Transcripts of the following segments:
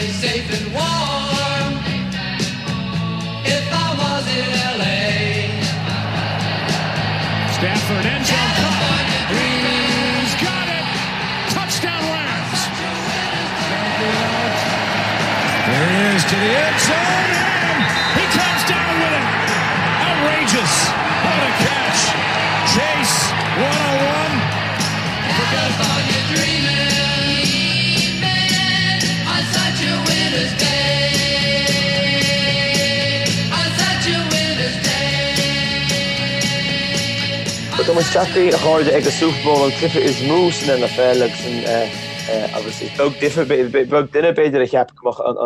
be safe and warm if I was in LA. Stafford end zone caught. He's got it. Touchdown Rams. There he is to the end zone and he comes down with it. Outrageous. What a catch. Chase 101. California dreaming on such a winter's day. On such a winter's day. Tá muid tagtha, a chairde, ag an Super Bowl, an cluiche is mó san NFL agus an agus is beag difear, beag duine b'fhéidir a cheap go mbeadh an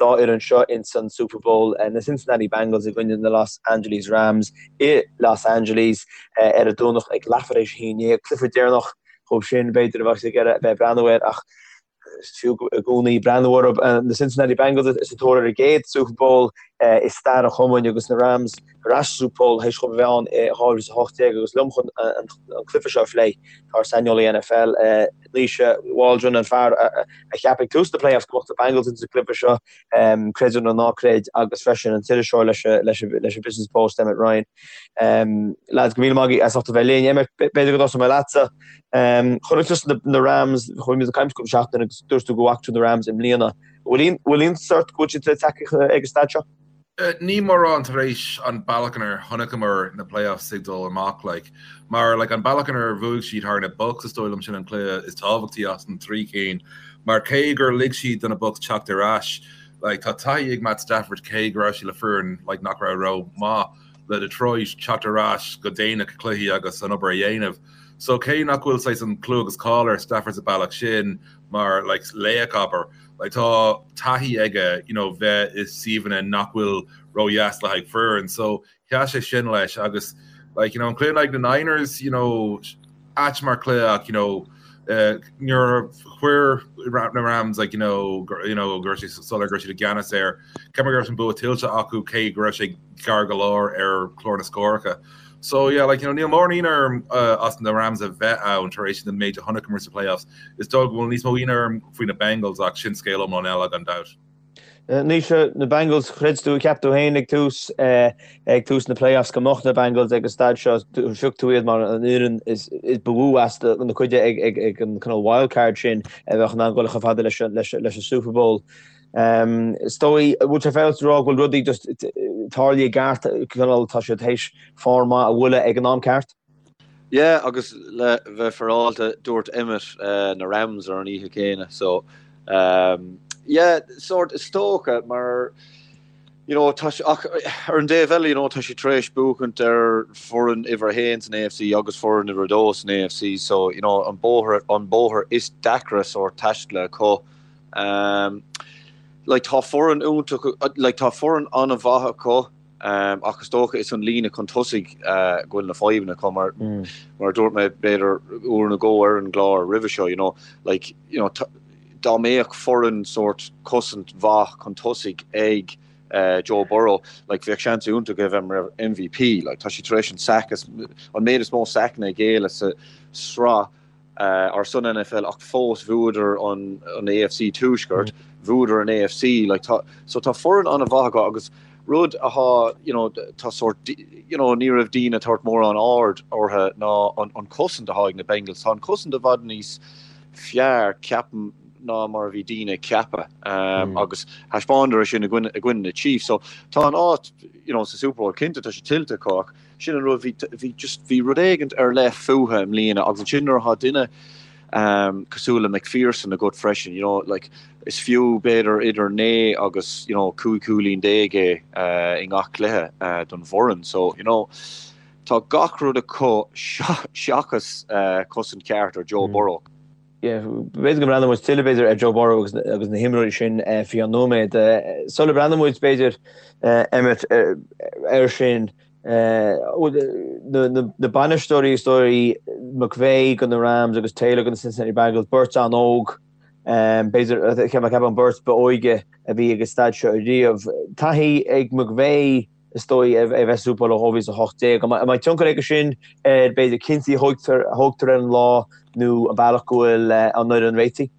dá fhoireann seo ins an Super Bowl, na Cincinnati Bengals i gcoinne na Los Angeles Rams i Los Angeles ar an Domhnach ag leathuair théis 11, cluiche deireanach dhóibh sin b'fhéidir a bheadh ag iarraidh a bheith ag breathnú air ach is fiú i gcónaí breathnú orthu. Na Cincinnati Bengals sa tóir ar a gcéad Super Bowl i stair an chumainn agus na Rams ar ais sa Super Bowl théis dhóibh a bheith ann i 2018 agus liom chun an cluiche seo a phlé tá ár saineolaí NFL, Naoise Waldron, an fear a cheap ag tús na playoffs go mbeadh na Bengals ins an gcluiche seo, creid é nó ná creid, agus freisin an t-iriseoir leis an Business Post, Emmet Ryan. Lads, go míle maith agaibh as ucht a bheith linn. Emmet, b'fhéidir go dtosóidh mé leatsa. Chonaic tusa na Rams, chuaigh muid ag caint cúpla seachtain agus dúirt tú go bhfaca tú na Rams i mbliana. Bhfuil iontas ort go bhfuil siad tagtha ag an staid seo? Ní mórán tar éis an bealach inar chonaiceamar na playoffs ag dul amach like mar like an bealach inar bhuaigh siad thar na Bucs is dóigh liom sin an cluiche is tábhachtaí as an trí cinn mar cé gur lig siad do na Bucs teacht ar ais like tá taithí ag Matt Stafford cé go raibh sé le foireann like nach raibh ró maith le Detroit teacht ar ais go déanach i cluichí agus an obair a dhéanamh so cé nach bhfuil saghas an clú agus cáil ar Stafford sa bealach sin mar like laoch abair Like tá taithí aige you know bheith i suíomhanna nach bhfuil ródheas le haghaidh foireann so sheas sé sin leis agus like you know an cluiche in aghaidh na Niners you know ait mar cluiche ach you know uh, nuair a chuir na Rams like you know you know go raibh sé soiléir go raibh siad i gceannas air cheap mé go raibh an bua tuillte acu cé go raibh sé gar go leor ar chlár na scóracha. So yeah, like, you know, níl mórán ionadh orm uh, as na Rams a bheith ann tar éis an méid a chonaiceamar sa playoffs. Is dóigh go bhfuil níos mó ionadh orm faoi na Bengals ach sin scéal iomlán eile gan dabht. Uh, Naoise, na Bengals, chreid tú, cheap tú féin ag tús uh, ag tús na playoffs go mbeadh na Bengals ag an staid seo, phioc tú iad mar an fhoireann is, is ba mhó as na cuide ag, ag, ag an cineál wildcard sin a bheadh in ann dul chomh fada leis, leis, leis an Super Bowl. Is dóigh, bhfuil sé féaráilte a rá go bhfuil rudaí just tarlaithe i gceart, cineál tá siad théis form maith a bhualadh ag an am ceart? Yeah, agus le bheith féaráilte, dúirt Emmet na Rams ar an oíche chéanna, so yeah, sort is dócha mar you know, tá ach ar an dtaobh eile, you know, tá siad tar éis buachaint ar foireann uimhir a haon san AFC agus foireann uimhir a dó san AFC, so you know, an bóthar an bóthar is deacra sort taistil acu. Um, like, tá foireann iontach, like, tá foireann an-mhaith acu, um, ach is dócha is an líne chun tosaigh uh, go bhfuil na fadhbanna acu mar, mm. mar a dúirt mé b'fhéidir uair nó dhó ar an gclár roimhe seo, you know, like, you know, dá mbeadh foireann sort cosaint mhaith chun tosaigh ag uh, Joe Burrow, like, bheadh seans iontach aige bheith mar MVP, like, tá sé tar éis an sack is, an méid is mó sackanna a ghéilleadh sa sraith ar son NFL ach fós bhuadar an AFC Tuaisceart, bhuadar an AFC, like tá, so tá foireann an-mhaith acu agus rud athá, you know, tá sórt, you know, ní raibh daoine ag tabhairt mórán aird orthu ná an, an cosaint athá ag na Bengals. Tá an cosaint i bhfad níos fearr, ceapaim, ná mar a bhí daoine ag ceapadh um, agus thaispeánadar é sin i gcoinne, i gcoinne na Chiefs. So tá an áit, you know, sa Super Bowl cinnte tá sé tuillte acu ach Sin an rud, bhí, bhí just, bhí rud éigint ar leith fúthu i mbliana agus ansin nuair atá duine cosúil le McPherson agat freisin, you know, like, is fiú b'fhéidir idir 9 agus, you know, 15 cúilín é i ngach cluiche don bhfoireann. So, you know, tá gach rud acu seachas cosaint ceart ar Joe Burrow. Yeah, b'fhéidir go mbreathnóidh muid tuilleadh b'fhéidir ar Joe Burrow agus agus na himreoirí sin faoi cheann nóiméad. Sula mbreathnóidh muid b'fhéidir Emmet air sin, na bainisteoirí is dóigh McVay go na Rams agus Taylor go na Cincinnati Bengals, beirt an-óg, b'fhéidir, ceapaim an beirt ba óige a bhí ag an staid seo ariamh. Taithí ag McVay is dóigh, a bheith sa Super Bowl ó 2018. An mbeidh tionchar aige sin ar, b'fhéidir, cinntí a thógtar ar an lá nó an bealach go bhfuil an fhoireann réitithe?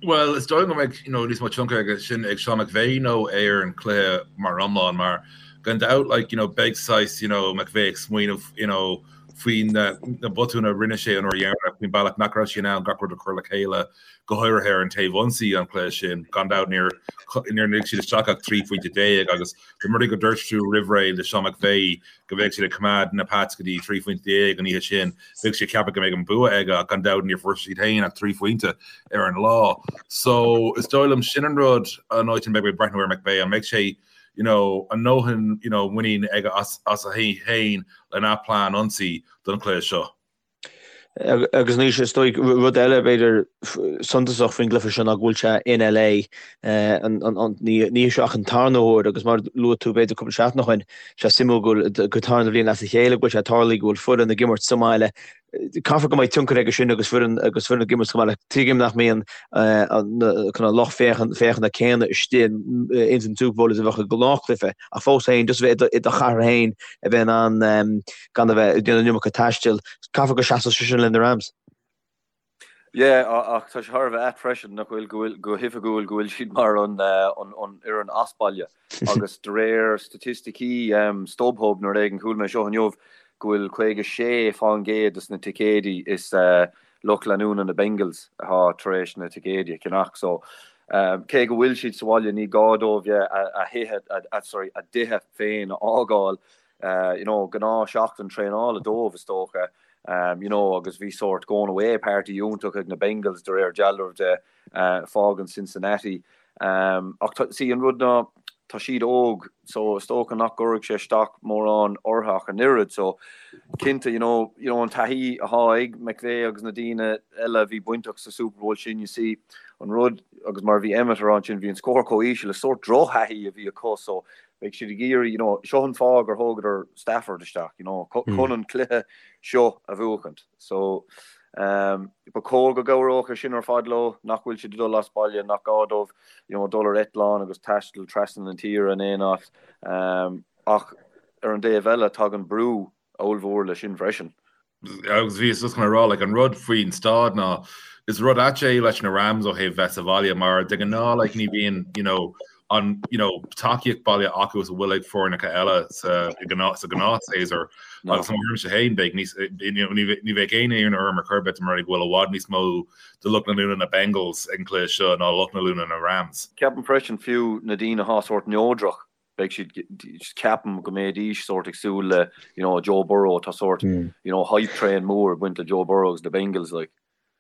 Bhuel, is dóigh go mbeidh you know, níos mó tionchar aige sin ag Sean McVay ná ar an cluiche mar iomlán mar gan dabht like, you know, beidh saghas you know, McVay ag smaoineamh you know, faoi na, na botúin a rinne sé an uair dheireanach faoin bealach nach raibh sé in ann gach rud a chur le chéile go háirithe ar an taobh ionsaí an cluiche sin. Gan dabht níor níor lig siad isteach ach 13 phointe agus dá mba rud é go dúirt tú roimh ré le Sean McVay go mbeadh siad ag coimeád na Pats go dtí 13 phointe an oíche sin, bheadh sé ag ceapadh go mbeadh an bua aige ach gan dabht níor fuair siad féin ach 3 phointe ar an lá. So is dóigh liom sin an rud an áit a mbeidh mé ag breathnú ar McVay, an mbeidh sé you know, a ndóthain you know, muinín aige as as a thaobh féin lena plean ionsaí don chluiche seo. Agus anois, is dóigh, rud eile b'fhéidir suntasach faoin gcluiche seo ná go bhfuil sé in LA ní hé seo ach an tarna huair agus mar a luaigh tú b'fhéidir cúpla seachtain ó shin, sé suimiúil go bhfuil go tarna bhliain as a chéile go bhfuil sé ag tarlú go bhfuil foireann ag imirt sa mbaile. Caithfear go mbeidh tionchar aige sin agus foireann agus foireann ag imirt sa mbaile. Tuigim nach mbíonn an lucht féachana céanna istigh ins an Super Bowl is a bheadh i ngnáthchluiche ach fós féin just a bheith i do chathair féin a bheith in ann gan a bheith ag déanamh an iomarca taistil. Caithfear go seasfadh sé sin le na Rams. Yeah, ach tá sé thar a bheith ait freisin nach bhfuil, go bhfuil, go hoifigiúil go bhfuil siad mar an an fhoireann as baile agus de réir staitisticí StubHub nó rud éigin chuala mé seo inniu go bhfuil 56% des na ticéidí is lucht leanúna na Bengals atá tar éis na ticéidí a cheannach so cé go bhfuil siad sa bhaile ní gá dóibh a thithe, sorry, a dtithe féin a fhágáil you know, gnáth seachtain traenála dóibh is dócha, you know, agus bhí sórt going away party iontach ag na Bengals de réir dealraimh de, fágann Cincinnati. Ach tá, see, an rud ná, tá siad óg, so is dócha nach gcuirfidh sé isteach mórán orthu ach an oiread, so cinnte, you know, you know, an taithí atá ag McVay agus na daoine eile a bhí bainteach sa Super Bowl sin, you see, an rud, agus mar a bhí Emmet a rá ansin, bhí an scór chomh íseal, is sórt drochthaithí a bhí acu, so Beidh siad ag iarraidh, you know, seo an fáth gur thógadar Stafford isteach, you know, chun an cluiche seo a bhuachaint. So, um, ba chóir go gcabhródh sé sin ar fad leo, nach bhfuil siad ag dul as baile, nach gá dóibh, you know, dul ar eitleán agus taisteal trasna na tíre in aon áit. Um, ach ar an dtaobh eile, tagann brú ollmhór leis sin freisin. Agus bhíos just chun a rá, like, an rud faoin staid ná, is rud ait é leis na Rams ó thaobh bheith sa bhaile mar de ghnáth, like, ní bhíonn, you know, an, you know, tacaíocht baile acu is a bhfuil ag foirneacha eile sa, sa ghnáthshéasúr. Agus mo thuairimse féin, beidh níos, you know, ní, ní bheidh aon ionadh orm ar chor ar bith dá mba rud é go bhfuil i bhfad níos mó de lucht leanúna na Bengals ag an cluiche seo ná lucht leanúna na Rams. Ceapaim freisin fiú na daoine atá sórt neodrach beidh siad, ceapaim go mbeidís sórt ag súil le, you know, Joe Burrow, tá sórt, you know, hype train mór ag baint le Joe Burrow agus na Bengals, like.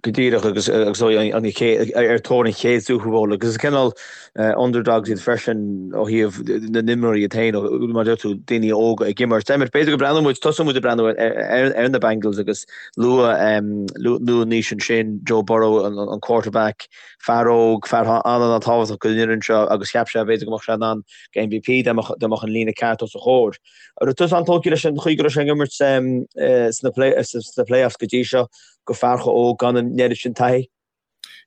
Go díreach agus agus an chéad ar tóir an chéad Super Bowl agus is cineál underdogs iad freisin ó thaobh na n-imreoirí iad féin mar deir tú daoine óga ag imirt. Emmet, b'fhéidir go breathnóidh muid, tosóidh muid ag breathnú ar na Bengals agus luadh luadh Naoise ansin Joe Burrow an quarterback, Fear óg, fear an-an-tábhachtach don fhoireann seo agus cheap sé b'fhéidir go mbeadh sé in ann do MVP dá mbeadh an líne ceart os a chomhair. An raibh tusa an-tógtha leis an chaoi go raibh sé ag imirt sna playoffs go dtí seo do fear chomh óg gan an oiread sin taithí?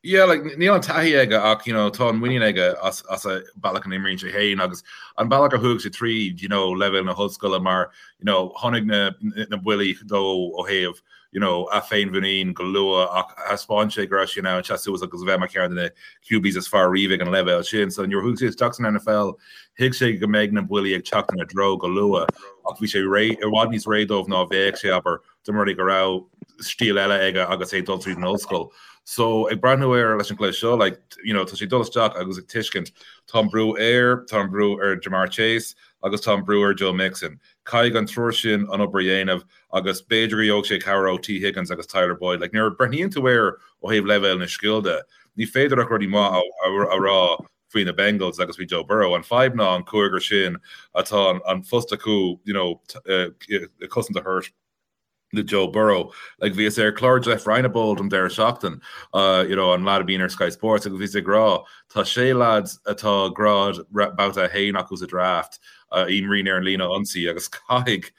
Yeah, like, níl an taithí aige ach you know, tá an muinín aige as, as an bealach a n-imríonn sé féin agus an bealach a chuaigh sé tríd you know, leibhéal na hollscoile mar you know, tháinig na, na buillí dó ó thaobh you know, a féinmhuinín go luath ach thaispeáin sé go raibh sé in ann seasamh suas agus a bheith mar cheann de na QBs is fearr riamh ag an leibhéal sin. So nuair a chuaigh sé isteach san NFL, thuig sé go mbeidh na buillí ag teacht ina dtreo go luath ach bhí sé réidh, i bhfad níos réidh dóibh ná a bheadh sé, abair, dá mba rud é go raibh stíl eile aige agus é ag dul tríd an ollscoil. So ag breathnú air leis an gcluiche seo, like, you know, tá sé ag dul isteach agus ag tuiscint, tá an brú air, tá an brú ar Ja'Marr Chase agus tá an brú ar Joe Mixon. Caithfidh an triúr sin an obair a dhéanamh agus b'fhéidir go gheobhaidh sé cabhair ó Tee Higgins agus Tyler Boyd. Like, nuair a breathnaíonn tú air ó thaobh leibhéal na scil de, ní féidir ach rudaí maith a rá faoi na Bengals agus faoi Joe Burrow. An fadhb ná an cúigear sin atá an post acu, you know, cosaint a thabhairt do Joe Burrow. Like, bhíos ar chlár Jeff Reinebold an deireadh seachtain, you know, an lad a bhíonn ar Sky Sports, agus bhíos ag rá, tá sé lads atá grád babhta 1 acu sa draft. a imríonn ar an líne ionsaí agus caithfidh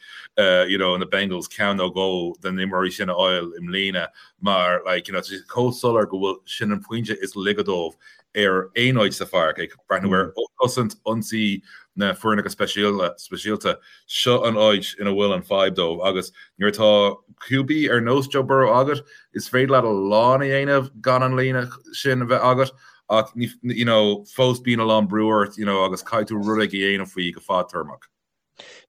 you know na Bengals ceann nó dhó den imreoirí sin a fháil i mbliana mar like you know tá sé chomh soiléir go bhfuil sin an pointe is laige dóibh ar aon áit sa pháirc, ag breathnú ar chosaint ionsaí na foirneacha speisialta, seo an áit ina bhfuil an fadhb dóibh agus nuair atá QB ar nós Joe Burrow agat, is féidir leat a lán a dhéanamh gan an líne sin a bheith agat ach you know fós bíonn a lán brú ort you know agus caithfidh tú rud éigin a dhéanamh faoi go fadtéarmach.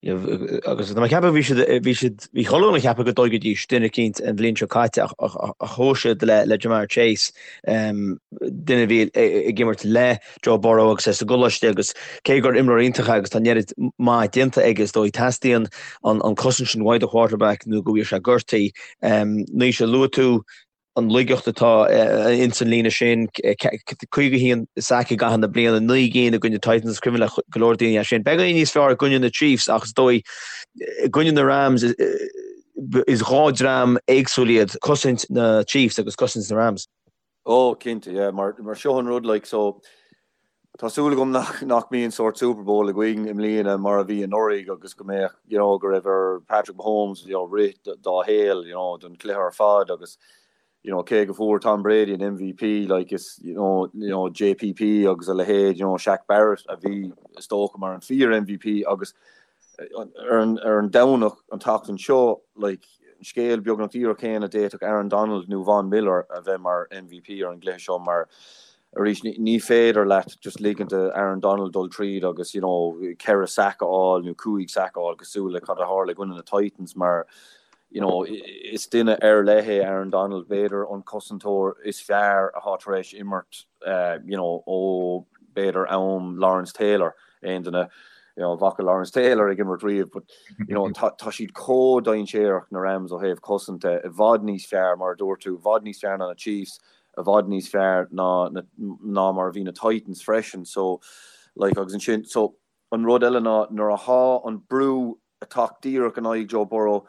Agus tá mé ag ceapadh bhí siad, bhí siad, bhí chuile dhuine ag ceapadh go dtógfaidís duine eicínt an bhliain seo caite ach ach chuaigh siad le le Ja'Marr Chase, duine a bhí ag imirt le Joe Burrow agus é sa gcoláiste agus cé gur imreoir iontach é agus tá an oiread maith déanta aige is dóigh teastaíonn an an cosaint sin uaidh do quarterback nó go bhfuil sé gortaithe. Naoise, luaigh tú an laigeacht atá ins an líne sin, 51 sac i gcaitheamh na bliana, 9 gcinn i gcoinne Titans, is cuimhin le go leor daoine é sin. Beagáinín níos fearr i gcoinne na Chiefs ach is dóigh i gcoinne na Rams is dhá dream éagsúil iad, cosaint na Chiefs agus cosaint na Rams. Oh cinnte, yeah, mar seo an rud like so Tá súil agam nach nach mbíonn sórt Super Bowl againn i mbliana mar a bhí anuraidh agus go mbeadh you know go raibh ar Patrick Mahomes you know rith dá shaol you know don chluiche ar fad agus you know cé go fuair Tom Brady an MVP like is you know you know JPP agus a leithéid you know Shaq Barrett a bhí is dócha mar an fíor MVP agus ar an ar an Domhnach an tseachtain seo like an scéal beagnach díreach céanna d'fhéadfadh Aaron Donald nó Von Miller a bheith mar MVP ar an gcluiche seo mar arís ní féidir leat just ligint do Aaron Donald dul tríd agus you know 4 sack a fháil nó 5 sack a fháil cosúil le cad a tharla i gcoinne na Titans mar you know is duine ar leith é Aaron Donald, b'fhéidir an cosantóir is fearr atá tar éis imirt you know ó b'fhéidir am Lawrence Taylor aon duine you know bhfaca Lawrence Taylor ag imirt riamh but you know tá tá siad chomh dainséarach na Rams ó thaobh cosanta i bhfad níos fearr mar a dúirt tú i bhfad níos fearr ná na Chiefs i bhfad níos fearr ná ná mar a bhí na Titans freisin so like agus ansin so an rud eile ná nuair athá an brú ag teacht díreach in aghaidh Joe Burrow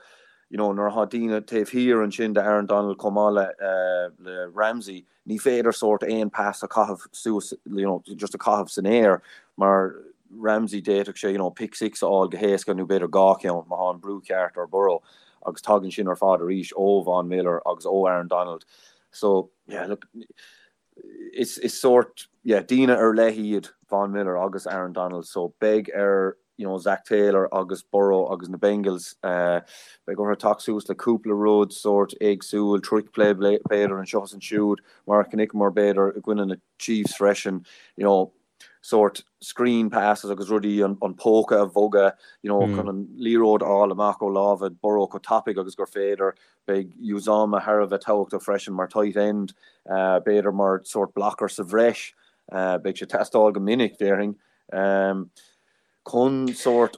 you know nuair athá daoine taobh thiar ansin de Aaron Donald chomh maith le eh, le Ramsey ní féidir sórt aon pass a chaitheamh suas you know just a chaitheamh san aer mar Ramsey d'fhéadfadh sé you know pick six a fháil go héasca nó b'fhéidir dhá cheann má thá an brú ceart ar Burrow agus tagann sin ar fad arís ó Von Miller agus ó Aaron Donald So, yeah, look, is, is sórt, yeah, daoine ar leith iad Von Miller agus Aaron Donald, so beidh ar, you know, Zac Taylor agus Burrow agus na Bengals, uh, beidh orthu teacht suas le cúpla rud sórt éagsúil, trick play b'fhéidir anseo is ansiúd, mar a chonaiceamar b'fhéidir i gcoinne na Chiefs freisin, you know, sórt screen passes agus rudaí an póca a bhogadh you know chun an liathróid a fháil amach ó lámha Burrow chomh tapaidh agus gur féidir. Beidh Uzomah thar a bheith tábhachtach freisin mar tight end, b'fhéidir mar sórt blocker sa bhreis. Beidh sé ag teastáil go minic, déarfainn, chun sórt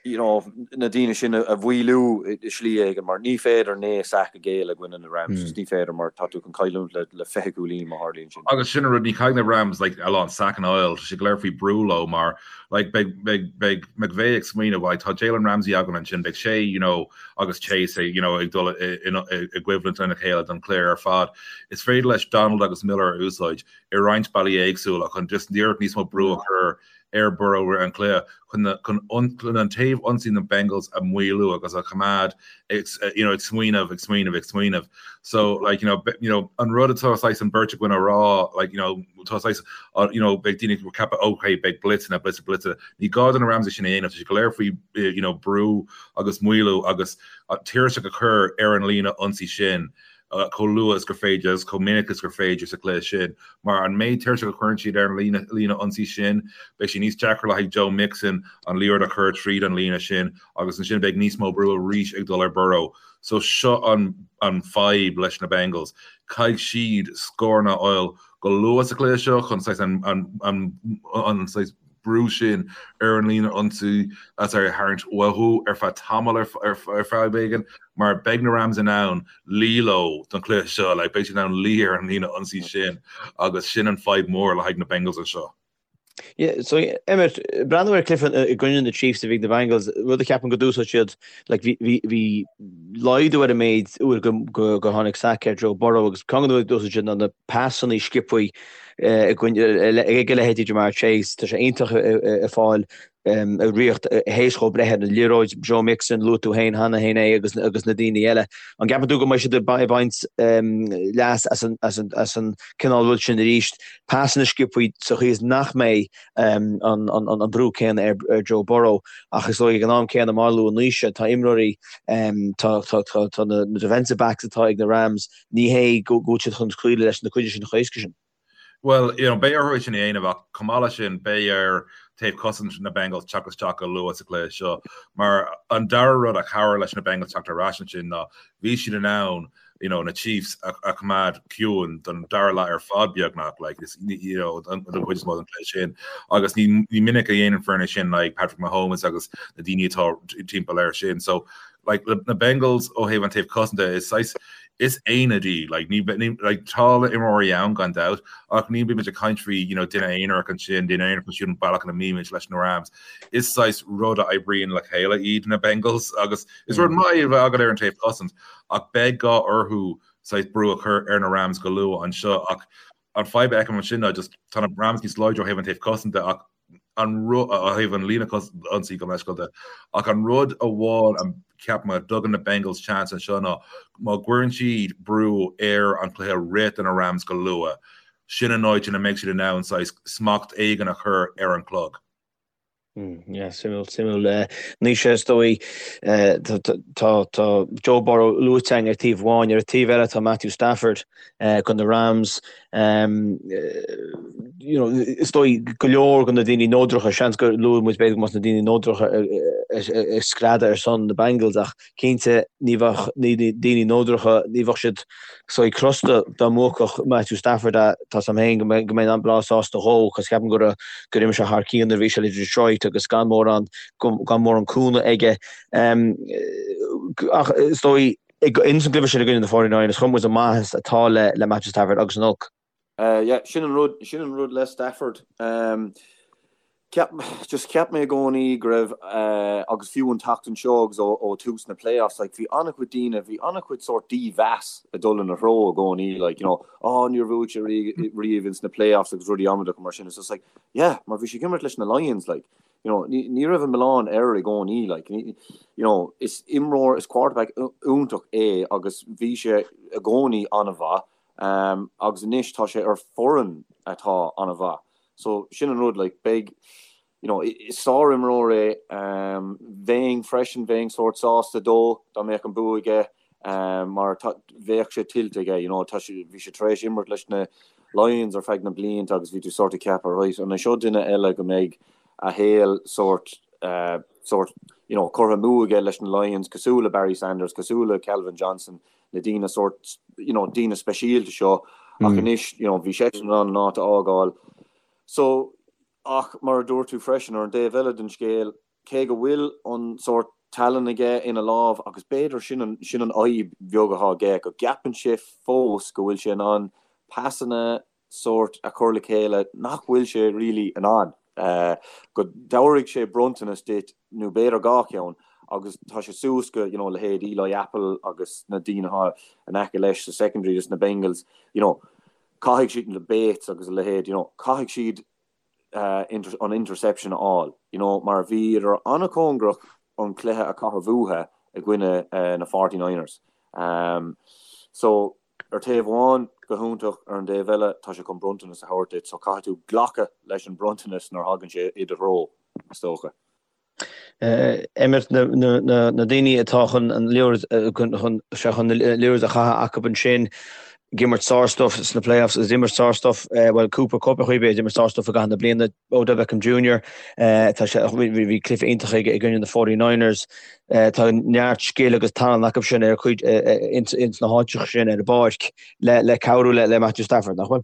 you know, na daoine sin a mhaolú i slí éigin mar ní féidir 9 sack a ghéilleadh i gcoinne na Rams, just ní féidir mar tá tú chun cailliúint le le 20 cúilín má tharlaíonn sin. Agus sin an rud, ní chaithfidh na Rams like a lán sackanna a fháil, tá sé go léir faoi brú leo mar like beidh beidh beidh McVay ag smaoineamh like tá Jalen Ramsey againn ansin, beidh sé you know agus Chase you know ag dul i i gcoimhlint lena chéile don chluiche ar fad. Is féidir leis Donald agus Miller a úsáid i roinnt bealaí éagsúla chun just iarracht níos mó brú a chur ar Burrow roimh an chluiche chun chun an taobh ionsaí na Bengals a mhaolú agus a choimeád ag you know ag smaoineamh ag smaoineamh ag smaoineamh. So like you know you know an rud atá saghas an beirt againn a rá like you know tá saghas uh, you know beidh daoine ag ceapadh okay beidh blitzeanna blitz blitz ní gá do na Rams é sin a dhéanamh tá sé go léir faoi eh, you know brú agus maolú agus uh, tuirseach a chur ar an líne ionsaí sin chomh luath is gur féidir agus chomh minic is gur féidir sa chluiche sin, mar an méid tuirseach a chuireann siad ar an líne líne ionsaí sin, beidh sé níos deacra le haghaidh Joe Mixon an liathróid a chur tríd an líne sin agus ansin beidh níos mó brú arís ag dul ar Burrow. So seo an an fadhb leis na Bengals. Caithfidh siad scóranna a fháil go luath sa chluiche seo chun saghas an an an an saghas brú sin ar an líne ionsaí a tharraingt uathu ar feadh tamall ar feadh éigin mar beidh na Rams in ann luí leo don chluiche seo, like beidh siad in ann luí ar an líne ionsaí sin agus sin an fadhb mór le haghaidh na Bengals anseo. Yeah, so Emmet, breathnú ar cluiche i gcoinne na Chiefs a bhí ag na Bengals, rud a cheapaim go d'úsáid siad, like bhí bhí bhí laghdú ar an méid uair go go go tháinig sac ar Joe Burrow agus ceann de na rudaí a d'úsáid siad ná na pasanna sciobtha ag a leithéidí Ja'Marr Chase, tá sé iontach ag fáil. Ag riocht théis dhó breith ar an liathróid, Joe Mixon, luaigh tú féin cheana féin é agus agus na daoine eile. An gceapann tú go mbeidh siad ag baint leas as an as an as an cineál rud sin arís, pasanna sciobtha sa chaoi is nach mbeidh an an an brú céanna ar ar Joe Burrow ach is dóigh ag an am céanna mar a luaigh Naoise tá imreoirí tá tá tá tá na defensive backs atá ag na Rams ní hé go bhfuil siad chun scaoileadh leis na cuid sin chomh héasca sin. Bhuel, you know, beidh orthu é sin a dhéanamh ach chomh maith leis sin, beidh ar taobh cosaint na Bengals teacht isteach go luath sa chluiche seo mar an dara rud a chabhraigh leis na Bengals teacht ar ais ansin ná bhí siad in ann you know, na Chiefs a, a choimeád ciúin don dara leath ar fad beagnach, like, is, you know, don chuid is mó den chluiche sin. Agus ní, ní minic a dhéanann foirne sin like Patrick Mahomes agus na daoine atá timpeall air sin. So, like, na Bengals ó thaobh an taobh cosanta is saghas is aonad í like ní ní like tá imreoirí ann gan dabht ach ní bímid ag caint faoi you know duine aonarach ansin duine aonarach ansiúd an bealach ina mbímid leis na Rams is saghas rud a oibríonn le chéile iad na Bengals agus is rud maith é a bheith agat ar an taobh cosaint ach beidh gá orthu saghas brú a chur ar na Rams go luath anseo ach an fadhb a fheicim ansin ná just tá na Rams níos láidre ó thaobh an taobh cosanta ach an rud ó thaobh an líne ionsaí gabh mo leithscéal de ach an rud amháin a cheapaim a dtugann na Bengals chance anseo ná má gcuireann siad brú ar an chluiche rith do na Rams go luath, sin an áit ina mbeidh siad in ann saghas smacht éigin a chur ar an chlog. Yeah, suimiúil, suimiúil. Naoise, is dóigh, tá Joe Burrow luaite againn ar taobh amháin, ar an taobh eile tá Matthew Stafford. do na Rams. You know, is dóigh go leor de na daoine neodracha, seans gur luaigh muid b'fhéidir go mbeadh na daoine neodracha ag screadadh ar son na Bengals ach cinnte ní bheadh daoine neodracha, ní bheadh siad saghas crosta dá mbuafadh Matthew Stafford é. Tá 's a'm féin go mbeinn an-bhreá sásta dhó cos ceapaim gur gur imir sé thar cionn nuair a bhí sé le Detroit agus gan mórán gan mórán cúnamh aige. Ach is dóigh Ins an gcluiche sin i gcoinne na 49ers, chonaic muid an maitheas atá le le Matthew Stafford agus an olc. Yeah, sin an rud, sin an rud le Stafford. Ceap, just cheap mé i gcónaí go raibh, agus fiú an tseachtain seo agus ó ó tús na playoffs, like bhí an-chuid daoine, bhí an-chuid sórt dímheas ag dul ina threo i gcónaí, like, you know, oh níor bhuaigh sé riamh ins na playoffs agus rudaí amaideacha mar sin. It's just like, yeah, mar bhí sé ag imirt leis na Lions, like. You know, ní, ní raibh an milleán air i gcónaí, like, ní, you know, is imreoir, is quarterback iontach é agus bhí sé i gcónaí an-mhaith, um, agus anois tá sé ar foireann atá an-mhaith. So, sin an rud, like, beidh, you know, is sár-imreoir é, um, bheinn freisin, bheinn sórt sásta dó dá mbeadh an bua aige, mar tá, bheadh sé tuillte aige, you know, tá sé, bhí sé tar éis imirt leis na Lions ar feadh na blianta agus bhí tú sórt ag ceapadh, right, an é seo duine eile go mbeidh a shaol sórt, sórt, you know, curtha amú aige leis na Lions, cosúil le Barry Sanders, cosúil le Calvin Johnson, na daoine sórt, you know, daoine speisialta seo, ach anois, you know, bhí seisean in ann an áit a fhágáil. So, ach mar a dúirt tú freisin, ar an dtaobh eile den scéal, cé go bhfuil an sórt tallann aige ina lámh, agus b'fhéidir sin an, sin an fhadhb bheag atá aige, go gceapann sé fós go bhfuil sé in ann pasanna sórt a chur le chéile nach bhfuil sé really in ann. Go dtabharfaidh sé bronntanas duit, nó b'fhéidir dhá cheann, agus tá sé suas go, you know, leithéid Eli Apple agus na daoine atá in aice leis sa secondary dos na Bengals, you know, caithfidh siad, na Bates agus a leithéid, you know, caithfidh siad an interception a fháil, you know, mar bhíodar an-chóngarach an cluiche a chaitheamh uathu i gcoinne na 49ers. So, ar taobh amháin, go hiontach, ar an dtaobh eile, tá sé chun bronntanas a thabhairt duit, so caithfidh tú glacadh leis an bronntanas nuair a thagann sé i do threo, is dócha. Emmet, na daoine atá chun an liathróid chun chun na liathróid a chaitheamh acu ansin ag imirt sár-stuff sna playoffs agus imirt sár-stuff bhuel Cooper Kupp ar chaoi ar bith ag imirt sár-stuff i gcaitheamh na bliana Odell Beckham Jr. tá sé bhí cluiche iontach aige i gcoinne na 49ers tá neart scil agus tallann acu sin ar chuid ins na háiteacha sin ar an bpáirc le le cabhrú le le Matthew Stafford nach bhfuil?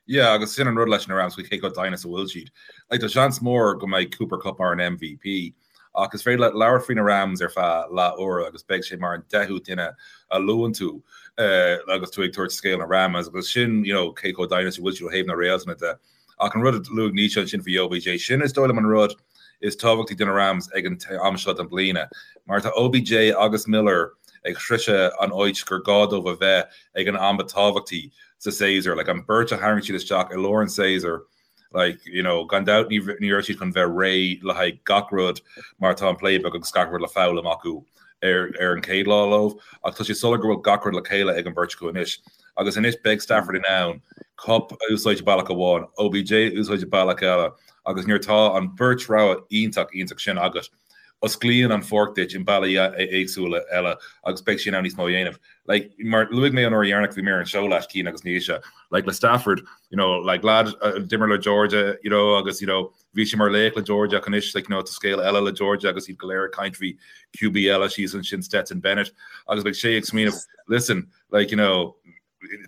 Yeah, agus sin an rud leis na Rams faoi cé chomh doimhin is a bhfuil siad. Like, tá seans mór go mbeidh Cooper Kupp mar an MVP, ach is féidir leat labhairt faoi na Rams ar feadh leath uaire agus beidh sé mar an deichiú duine a luann tú agus tú ag tabhairt scéal na Rams agus sin, you know, cé chomh doimhin is a bhfuil siad ó thaobh na réaltanna de. Ach an rud a luaigh Naoise ansin faoi OBJ, sin is dóigh liom an rud is tábhachtaí do na Rams ag an am seo den bliana, mar tá OBJ agus Miller ag sroicheadh an áit gur gá dóibh a bheith ag an am ba tábhachtaí sa séasúr. Like an beirt a tharraing siad isteach i lár an séasúir. Like, you know, gan dabht ní ní raibh siad chun bheith réidh le haghaidh gach rud mar tá an playbook agus gach rud le foghlaim acu ar ar an chéad lá leo, ach tá sé soiléir go bhfuil gach rud le chéile ag an bheirt acu anois. Agus anois beidh Stafford in ann Kupp a úsáid bealach amháin, OBJ a úsáid bealach eile, agus nuair atá an bheirt rogha iontach iontach sin agat, osclaíonn an pháirc duit i mbealaí éagsúla eile agus beidh sé in ann níos mó a dhéanamh. Like, mar luaigh mé an uair dheireanach bhí mé ar an seó leat, Cian agus Naoise, like le Stafford, you know, like lad a d'imir le Georgia, you know, agus, you know, bhí sé mar laoch le Georgia ach anois, like, you know, tá scéal eile le Georgia agus iad go léir ag caint faoi QB eile síos ansin, Stetson Bennett, agus beidh sé ag smaoineamh, listen, like, you know,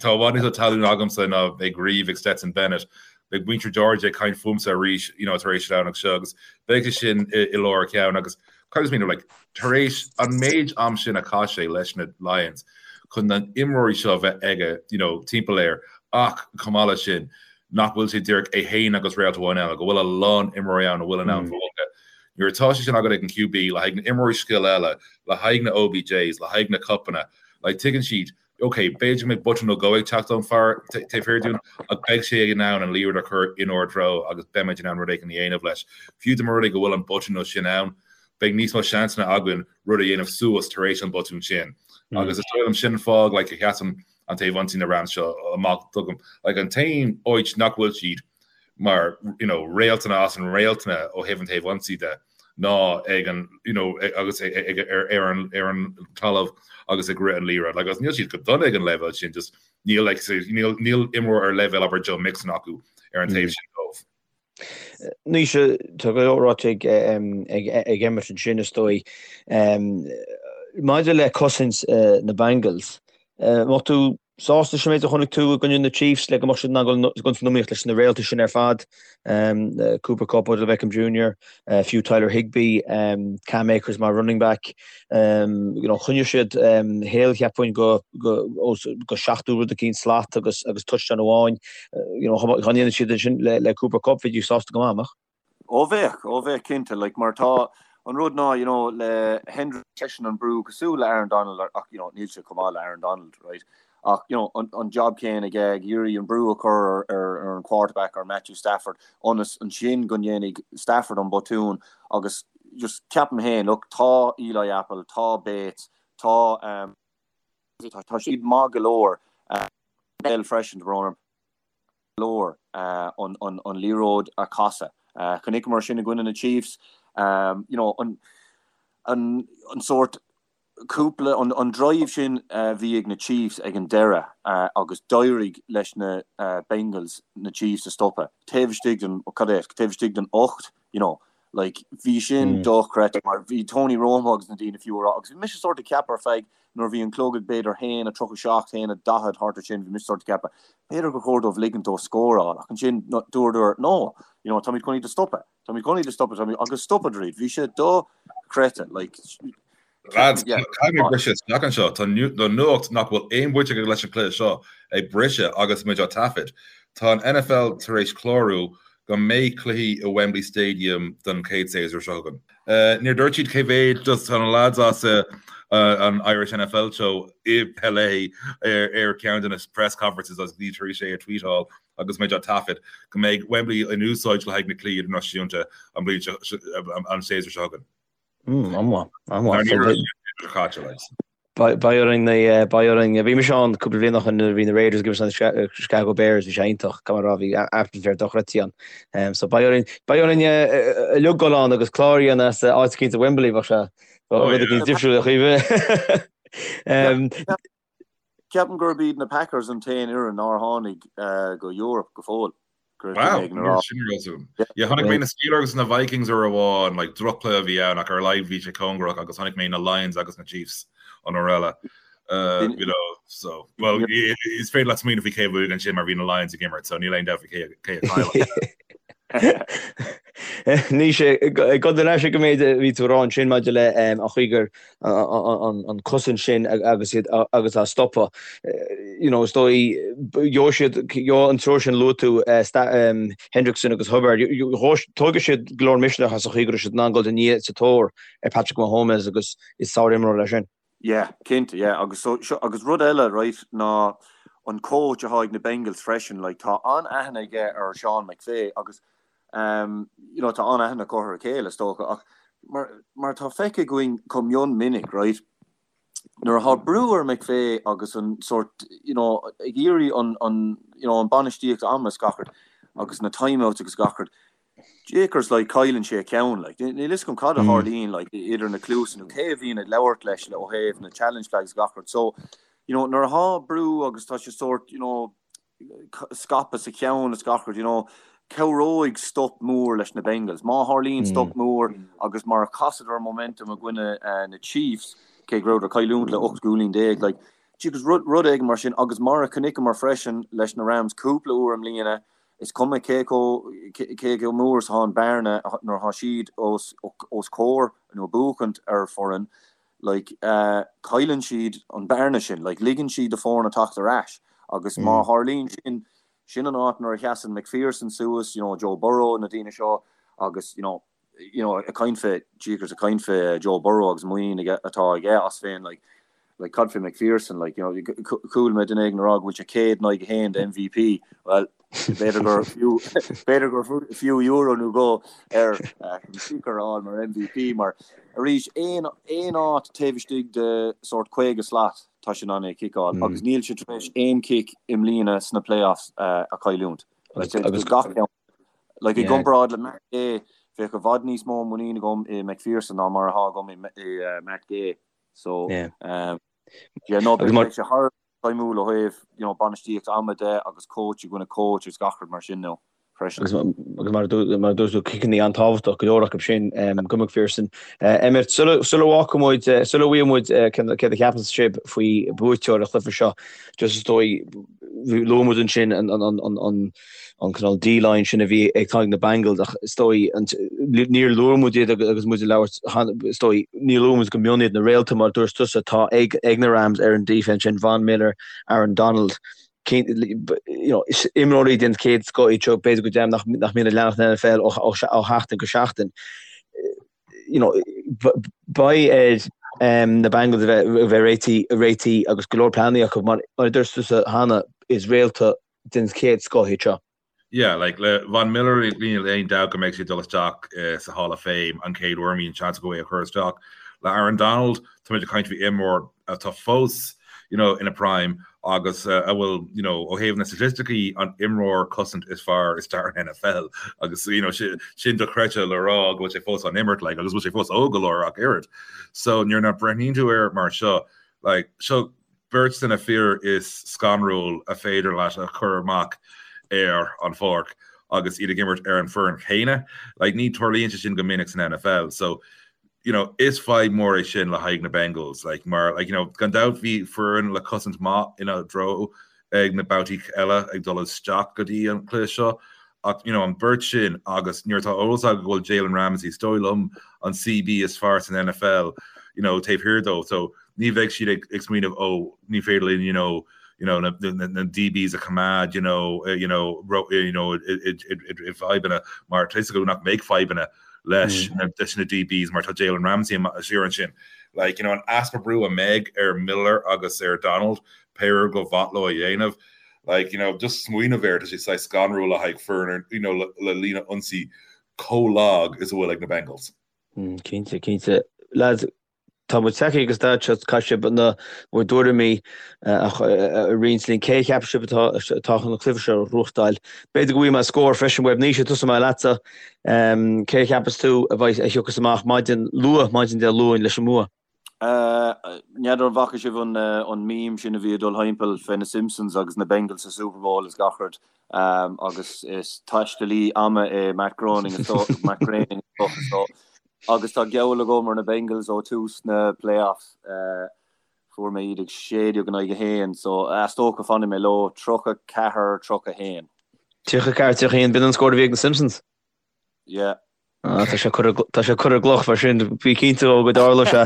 Tá i bhfad níos mó talún agamsa ná beidh riamh ag Stetson Bennett. Beidh muintir Georgia ag caint fúmsa arís you know tar éis an Domhnach seo agus beidh sé sin i lár a cheann agus caithfidh mé like tar éis an méid am sin a chaith sé leis na Lions chun na imreoirí seo a bheith aige you know timpeall air ach chomh maith leis sin nach bhfuil sé díreach é féin agus réalt amháin eile, go bhfuil a lán imreoirí ann a bhfuil in ann buachan. Nuair atá sé sin agat ag an QB le haghaidh na imreoirí scil eile, le haghaidh na OBJs, le haghaidh na Kuppanna, like tuigeann siad Ok, b'fhéidir go mbeidh botún nó dhó ag teacht ón fear taobh thiar dúinn, ach beidh sé in ann an liathróid a chur inár dtreo agus beimid in ann rud éigin a dhéanamh leis. Fiú dá mba rud é go bhfuil an botún nó sin ann, beidh níos mó seansanna againn rud a dhéanamh suas tar éis an botún sin. Agus is dóigh liom sin an fáth like, a sheasann an taobh ionsaí na Rams seo amach dom. Like, an t-aon áit nach bhfuil siad mar you know, réaltanna as an réaltanna ó thaobh an taobh ionsaí de, ná ag an you know agus ag ar ar an ar an talamh agus ag rith an liathróid. Like agus níl siad go dona ag an leibhéal sin just níl like níl níl imreoir ar leibhéal abair Joe Mixon acu ar an taobh sin dóibh. Naoise, tá go leor ráite ag ag ag Emmet ansin is dóigh. Maidir le cosaint na Bengals, mbeadh tú sásta leis an méid a chonaic tú i gcoinne na Chiefs le go mbeadh siad in ann dul san iomaíocht leis na réaltaí sin ar fad, Cooper Kupp, Odell Beckham Jr, fiú Tyler Higbee, Cam Akers mar running back. You know, choinnigh siad Hill, cheapfainn, go go go 70 rud eicínt slat agus agus touchdown amháin. You know, dá ndéanadh siad sin le le Cooper Kupp, bheidís sásta go maith, an mbeadh? Ó bheadh, ó bheadh cinnte, like mar tá an rud ná, you know, le Hendrickson seisean an brú cosúil le Aaron Donald ach, you know, níl sé chomh maith le Aaron Donald, right? Ach, you know, an, an job céanna aige ag iarraidh an brú a chur ar, ar, ar an quarterback, ar Matthew Stafford, ionas ansin go ndéanfaidh Stafford an botún agus just ceapaim féin, look, tá Eli Apple, tá Bates, tá, um, tá, tá siad maith go leor, uh, Bell freisin, tá brón orm. leor an liathróid a chasadh. Chonaiceamar sin i gcoinne na Chiefs, you know, an an sórt cúpla, an drive sin a bhí ag na Chiefs ag an deireadh agus d'éirigh leis na Bengals na Chiefs a stopadh taobh istigh den, cad é, taobh istigh den 8, you know, like bhí sin dochreidte mar bhí Tony Romo agus na daoine fiú a rá agus bhí mise sórt ag ceapadh ar feadh nuair a bhí an clog ag b'fhéidir 1:37, 1:40 thart ar sin bhí mise sórt ag ceapadh b'fhéidir gur chóir dóibh ligint dó scóráil ach ansin dúradar no you know táimid chun iad a stopadh táimid chun iad a stopadh táimid agus stopadar iad bhí sé dochreidte like Lads, caithfidh mé briseadh isteach anseo. Tá nuacht nach bhfuil aon bhaint aige leis an chluiche seo ag briseadh agus muid á taifead. Tá an NFL tar éis clárú go mbeidh cluichí i Wembley Stadium don chéad séasúr seo chugainn. Níor dúirt siad cé mhéad, just tá na lads as an Irish NFL Show i LA ar ceann de na press conferences agus iad tar éis é a tweetáil agus muid á taifead, go mbeidh Wembley in úsáid le haghaidh na cluichí idirnáisiúnta an bhliain seo, an séasúr seo chugainn. An-mhaith, an-mhaith. Beidh orainn, beidh orainn. Bhí mise ann cúpla bliain ó shin nuair a bhí na Raiders ag imirt na Chicago Bears, bhí sé iontach, caithfidh mé a rá, bhí atmaisféar dochreidte ann. So beidh orainn, beidh orainn uilig dul ann agus clár a dhéanamh as áit eicínt i Wembley, bheadh sé rud eicínt difriúil a Chaoimhe. Ceapaim gurb iad na Packers an t-aon fhoireann nár tháinig go Europe go fóill. Wow, sin rud úr. Yeah, chonaic mé na Steelers agus na Vikings uair amháin, like droch-chluiche a bhí ann ach ar a laghad bhí sé cóngarach agus chonaic mé na Lions agus na Chiefs an uair eile. Uh, you know, so, well, is féidir leat smaoineamh faoi cé a bhuaigh ansin mar bhí na Lions ag imirt, so níl aon dabht faoi cé cé a chaill. Naoise, ag dul ar ais ag an méid a bhí tú a rá ansin maidir le an chaoi gur an cosaint sin agus iad agus á stopadh. You know, is dóigh, gheobhaidh siad, gheobhaidh an triúr sin a luaigh tú, Hendrickson agus Hubbard, tógfaidh siad go leor misneach as an chaoi go raibh siad in ann dul i ndiaidh sa tóir ar Patrick Mahomes agus is sárimreoir é sin. Yeah, cinnte, yeah. Agus so, seo, agus rud eile, right, ná an coach atá ag na Bengals freisin, like tá an-aithne aige ar Sean McVay agus um, you know, tá an-aithne acu ar a chéile is dócha ach mar, mar tá feicthe againn chomh mion minic, right, nuair atá brú ar McVay agus an sort, you know, ag iarraidh an, an, you know, an bainistíocht ama is gach rud agus na timeouts agus gach rud, Jaycers like cailleann sé a cheann like níl fhios agam cad a tharlaíonn like idir na cluasa nó cé a bhíonn ag labhairt leis le ó thaobh na challenge flags gach rud so you know nuair atá brú agus tá sé sort you know scaipthe sa cheann is gach rud you know cabhróidh stop mór leis na Bengals má tharlaíonn stop mór agus mar a chasadar momentum i gcoinne uh, na Chiefs cé go rabhadar ag cailliúint le 18 gcúilín like Jaycers rud rud éigin mar sin agus mar a chonaiceamar freisin leis na Rams cúpla uair i mbliana Is cuma cé chomh mór is atá an bearna nuair atá siad os comhair nó ag buachaint ar foireann, like, cailleann siad an bearna sin, like, ligeann siad do foirne teacht ar ais agus má tharlaíonn sin, sin an áit nuair a sheasann McPherson suas, you know, Joe Burrow, na daoine seo agus, you know, you know, ag caint fé, jeekers, ag caint fé Joe Burrow agus muinín aige, atá aige as féin, like, like, cad fé McPherson, like, you know, chuala mé duine éigin ag rá go bhfuil sé 100 in aghaidh 1 do MVP, well, b'fhéidir gur fiú, b'fhéidir gur fiú euro nó dhó air kicker a fháil mar MVP, mar arís, aon, aon áit taobh istigh de sórt 50 slat, tá sé in ann é a chiceáil, agus níl sé tar éis aon chic i mbliana sna playoffs a chailliúint. Agus gach ceann. Like, i gcomparáid le Matt Gay, bheadh i bhfad níos mó muinín agam i McPherson ná mar atá agam i Matt Gay. So, um, yeah, no, beidh sé thar feidhmiúil ó thaobh, you know, bainistíocht ama de agus coach i gcoinne coach agus gach rud mar sin nó freisin. Agus mar a dúirt tú, ciceanna an-tábhachtach go leor acu sin go McPherson. Emmet, sula bhfágfaidh muid, sula bhfaighidh muid céard a cheapann sibh faoi buaiteoir an chluiche seo, just is dóigh, luaigh muid ansin an an cineál D-line sin a bhí ag tá ag na Bengals ach is dóigh níor luaigh muid iad agus muid ag labhairt is dóigh níor luaigh muid go mion iad na réalta mar dúirt tusa atá ag ag na Rams ar an defense sin Von Miller, Aaron Donald you know, imreoirí den chéad scoth iad seo b'fhéidir go deimhin nach nach mbíonn ag leanacht an NFL ó ó ó sheachtain go seachtain. You know, beidh ar um, na Bengals a bheith a bheith réitithe réitithe agus go leor pleananna acu mar mar a dúirt tusa cheana is réalta den chéad scoth iad seo. Yeah, like le Von Miller níl aon dabht go mbeidh sé ag dul isteach sa Hall of Fame an chéad uair a mbíonn seans acu é a chur isteach. Le Aaron Donald, táimid ag caint faoi imreoir atá fós you know, ina prime agus a bhfuil you know, ó thaobh na staitisticí an imreoir cosaint is fearr i stair an NFL agus you know, sin dochreidte le rá go bhfuil sé fós á imirt like, agus bhfuil sé fós óg go leor ach oiread. So nuair a breathnaíonn tú air mar seo, like, seo beirt de na fir is scanrúil a féidir leat a chur amach ar an pháirc agus iad ag imirt ar an foireann chéanna. Like, ní tarlaíonn sé sin go minic san NFL. So, you know, is fadhb mór é sin le haghaidh na Bengals. Like, mar, like, you know, gan dabht bhí foireann le cosaint maith ina dtreo ag na babhtaí eile ag dul isteach go dtí an cluiche seo. Ach, you know, an beirt sin agus nuair atá eolas agat go bhfuil Jalen Ramsey, is dóigh liom, an CB is fearr san NFL, you know, taobh thiar dó. So, ní bheidh siad ag ag smaoineamh oh ní féidir linn you know you know na na na DBs a choimeád you know you know ro you know i i i i fadhbanna mar tá fhios acu nach mbeidh fadhbanna leis na leis na DBs mar tá Jalen Ramsey siar ansin. Like you know an easpa brú a mbeidh ar Miller agus ar Donald pé ar go mhaith leo a dhéanamh like you know just smaoineamh air tá sé saghas scanrúil le haghaidh foireann you know le le líne ionsaí chomh lag is a bhfuil ag na Bengals. Cinnte, cinnte. Lads, Tá muid tagtha ag an staid seo, caithfidh sibh na bhur dtuairimí a roinnt linn. Cé a cheapann sibh atá atá chun an cluiche seo a ghnóthachtáil? B'fhéidir go bhfaighidh mé scór freisin uaibh. Naoise, tosóidh mé leatsa. Cé a cheapas tú a bheidh a thiocfas amach maidin luath, maidin Dé Luain leis an mbua? N'fheadar an bhfaca sibh an an meme sin a bhí ag dul thimpeall fé na Simpsons agus na Bengals sa Super Bowl is gach rud agus is taistealaí ama é Matt Groening is dócha Matt Groening is dócha so Agus tá geall agam ar na Bengals ó tús na playoffs. Fuair mé iad ag 16 in aghaidh 1, so is dócha fanfaidh mé leo, 34, 31. 34, 31, b'in an scór a bhí ag na Simpsons? Yeah. Ah, tá sé curtha tá sé curtha i gcloch mar sin, bí cinnte ó go dtarlóidh sé.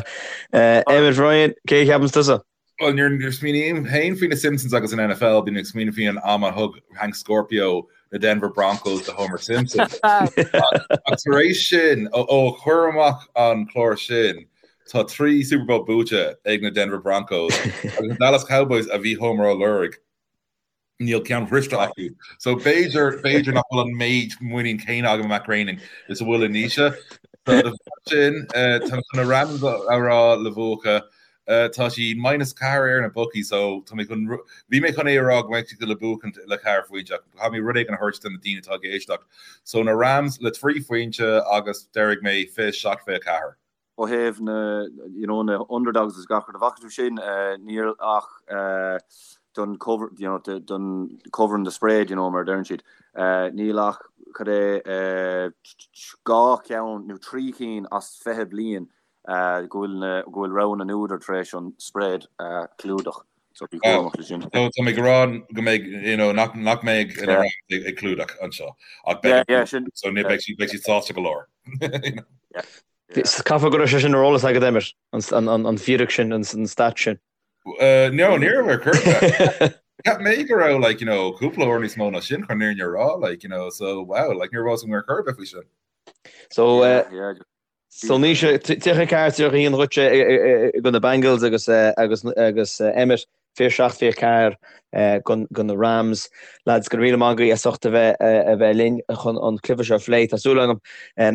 Emmet Ryan, cé a cheapanns tusa? Bhuel, nuair a smaoiním féin faoi na Simpsons agus an NFL, bím ag smaoineamh faoi an am a thug Hank Scorpio na Denver Broncos do Homer Simpson. Ach tar éis sin, ó chuir amach an clár sin, tá 3 Super Bowl buaite ag na Denver Broncos agus na Dallas Cowboys a bhí Homer á lorg. Níl ceann bhriste acu. So b'fhéidir, b'fhéidir nach bhfuil an méid muinín céanna agam i Matt Groening is a bhfuil i Naoise. So de bharr sin, tá mé chun na Rams a rá le buachan. Tá siad minus 4 ar na bookies so tá mé chun, bhí mé chun é a rá go mbeidh siad le buachaint le ceathair phointe ach caithfidh mé rud éigin a thabhairt do na daoine atá ag éisteacht. So na Rams le 3 phointe agus déarfaidh mé 27 24. Ó thaobh na, you know, na underdogs is gach rud, an bhfaca tú sin, níl ach don cover, you know, don covering the spread, you know, mar a deireann siad, níl ach, cad é, dhá cheann nó trí cinn as 20 bliain go bhfuil na, go bhfuil rogha na n-údar tar éis an spread a chlúdach. So bí cúramach le sin. So tá mé ag rá go mbeidh, you know, nach, nach mbeidh na Rams ag clúdach anseo. Ach beidh, yeah, yeah, sin, so ní beidh siad, beidh siad sásta go leor. You know. Yeah. Caithfidh go raibh sé sin ar eolas agat, Emmet, an fíric sin, an stat sin. No, ní raibh ar chor ar bith. Cheap mé go raibh, like, you know, cúpla uair níos mó ná sin chun an fhírinne a rá, like, you know, so, wow, like, ní raibh a fhios agam ar chor ar bith faoi sin. So, so Naoise, 34, 31 dhuitse do na Bengals agus, agus, agus Emmet, 27, 24 do na Rams. Lads, go raibh míle maith agaibh as ucht a bheith a bheith linn chun an cluiche seo a phlé. Tá súil agam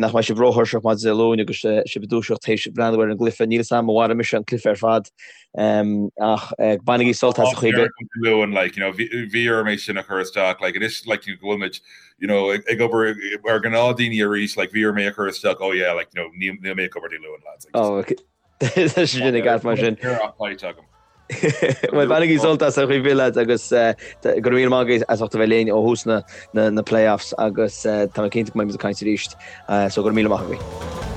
nach mbeidh sibh róthuirseach maidin Dé Luain agus sibh ag dúiseacht théis breathnú ar an gcluiche. Níl 'fhios a'm an mairfidh mise an cluiche ar fad ach bainigí sult as a chaoi. Dé Luain, like, you know, bhí orm é sin a chur isteach, like, anois, like, you know, go bhfuil muid, you know, ag obair mar ghnáthdaoine arís, like, bhí orm é a chur isteach, oh yeah, like, you know, níl mé ag obair Dé Luain, lads. Like, oh, okay. Tá sé sin i gceart mar sin. Bhuel, bainigí sult as ar chaoi ar bith lads agus go raibh míle maith agaibh as ucht a bheith linn ó thús na playoffs agus tá mé cinnte go mbeidh muid ag caint arís so go raibh míle maith agaibh.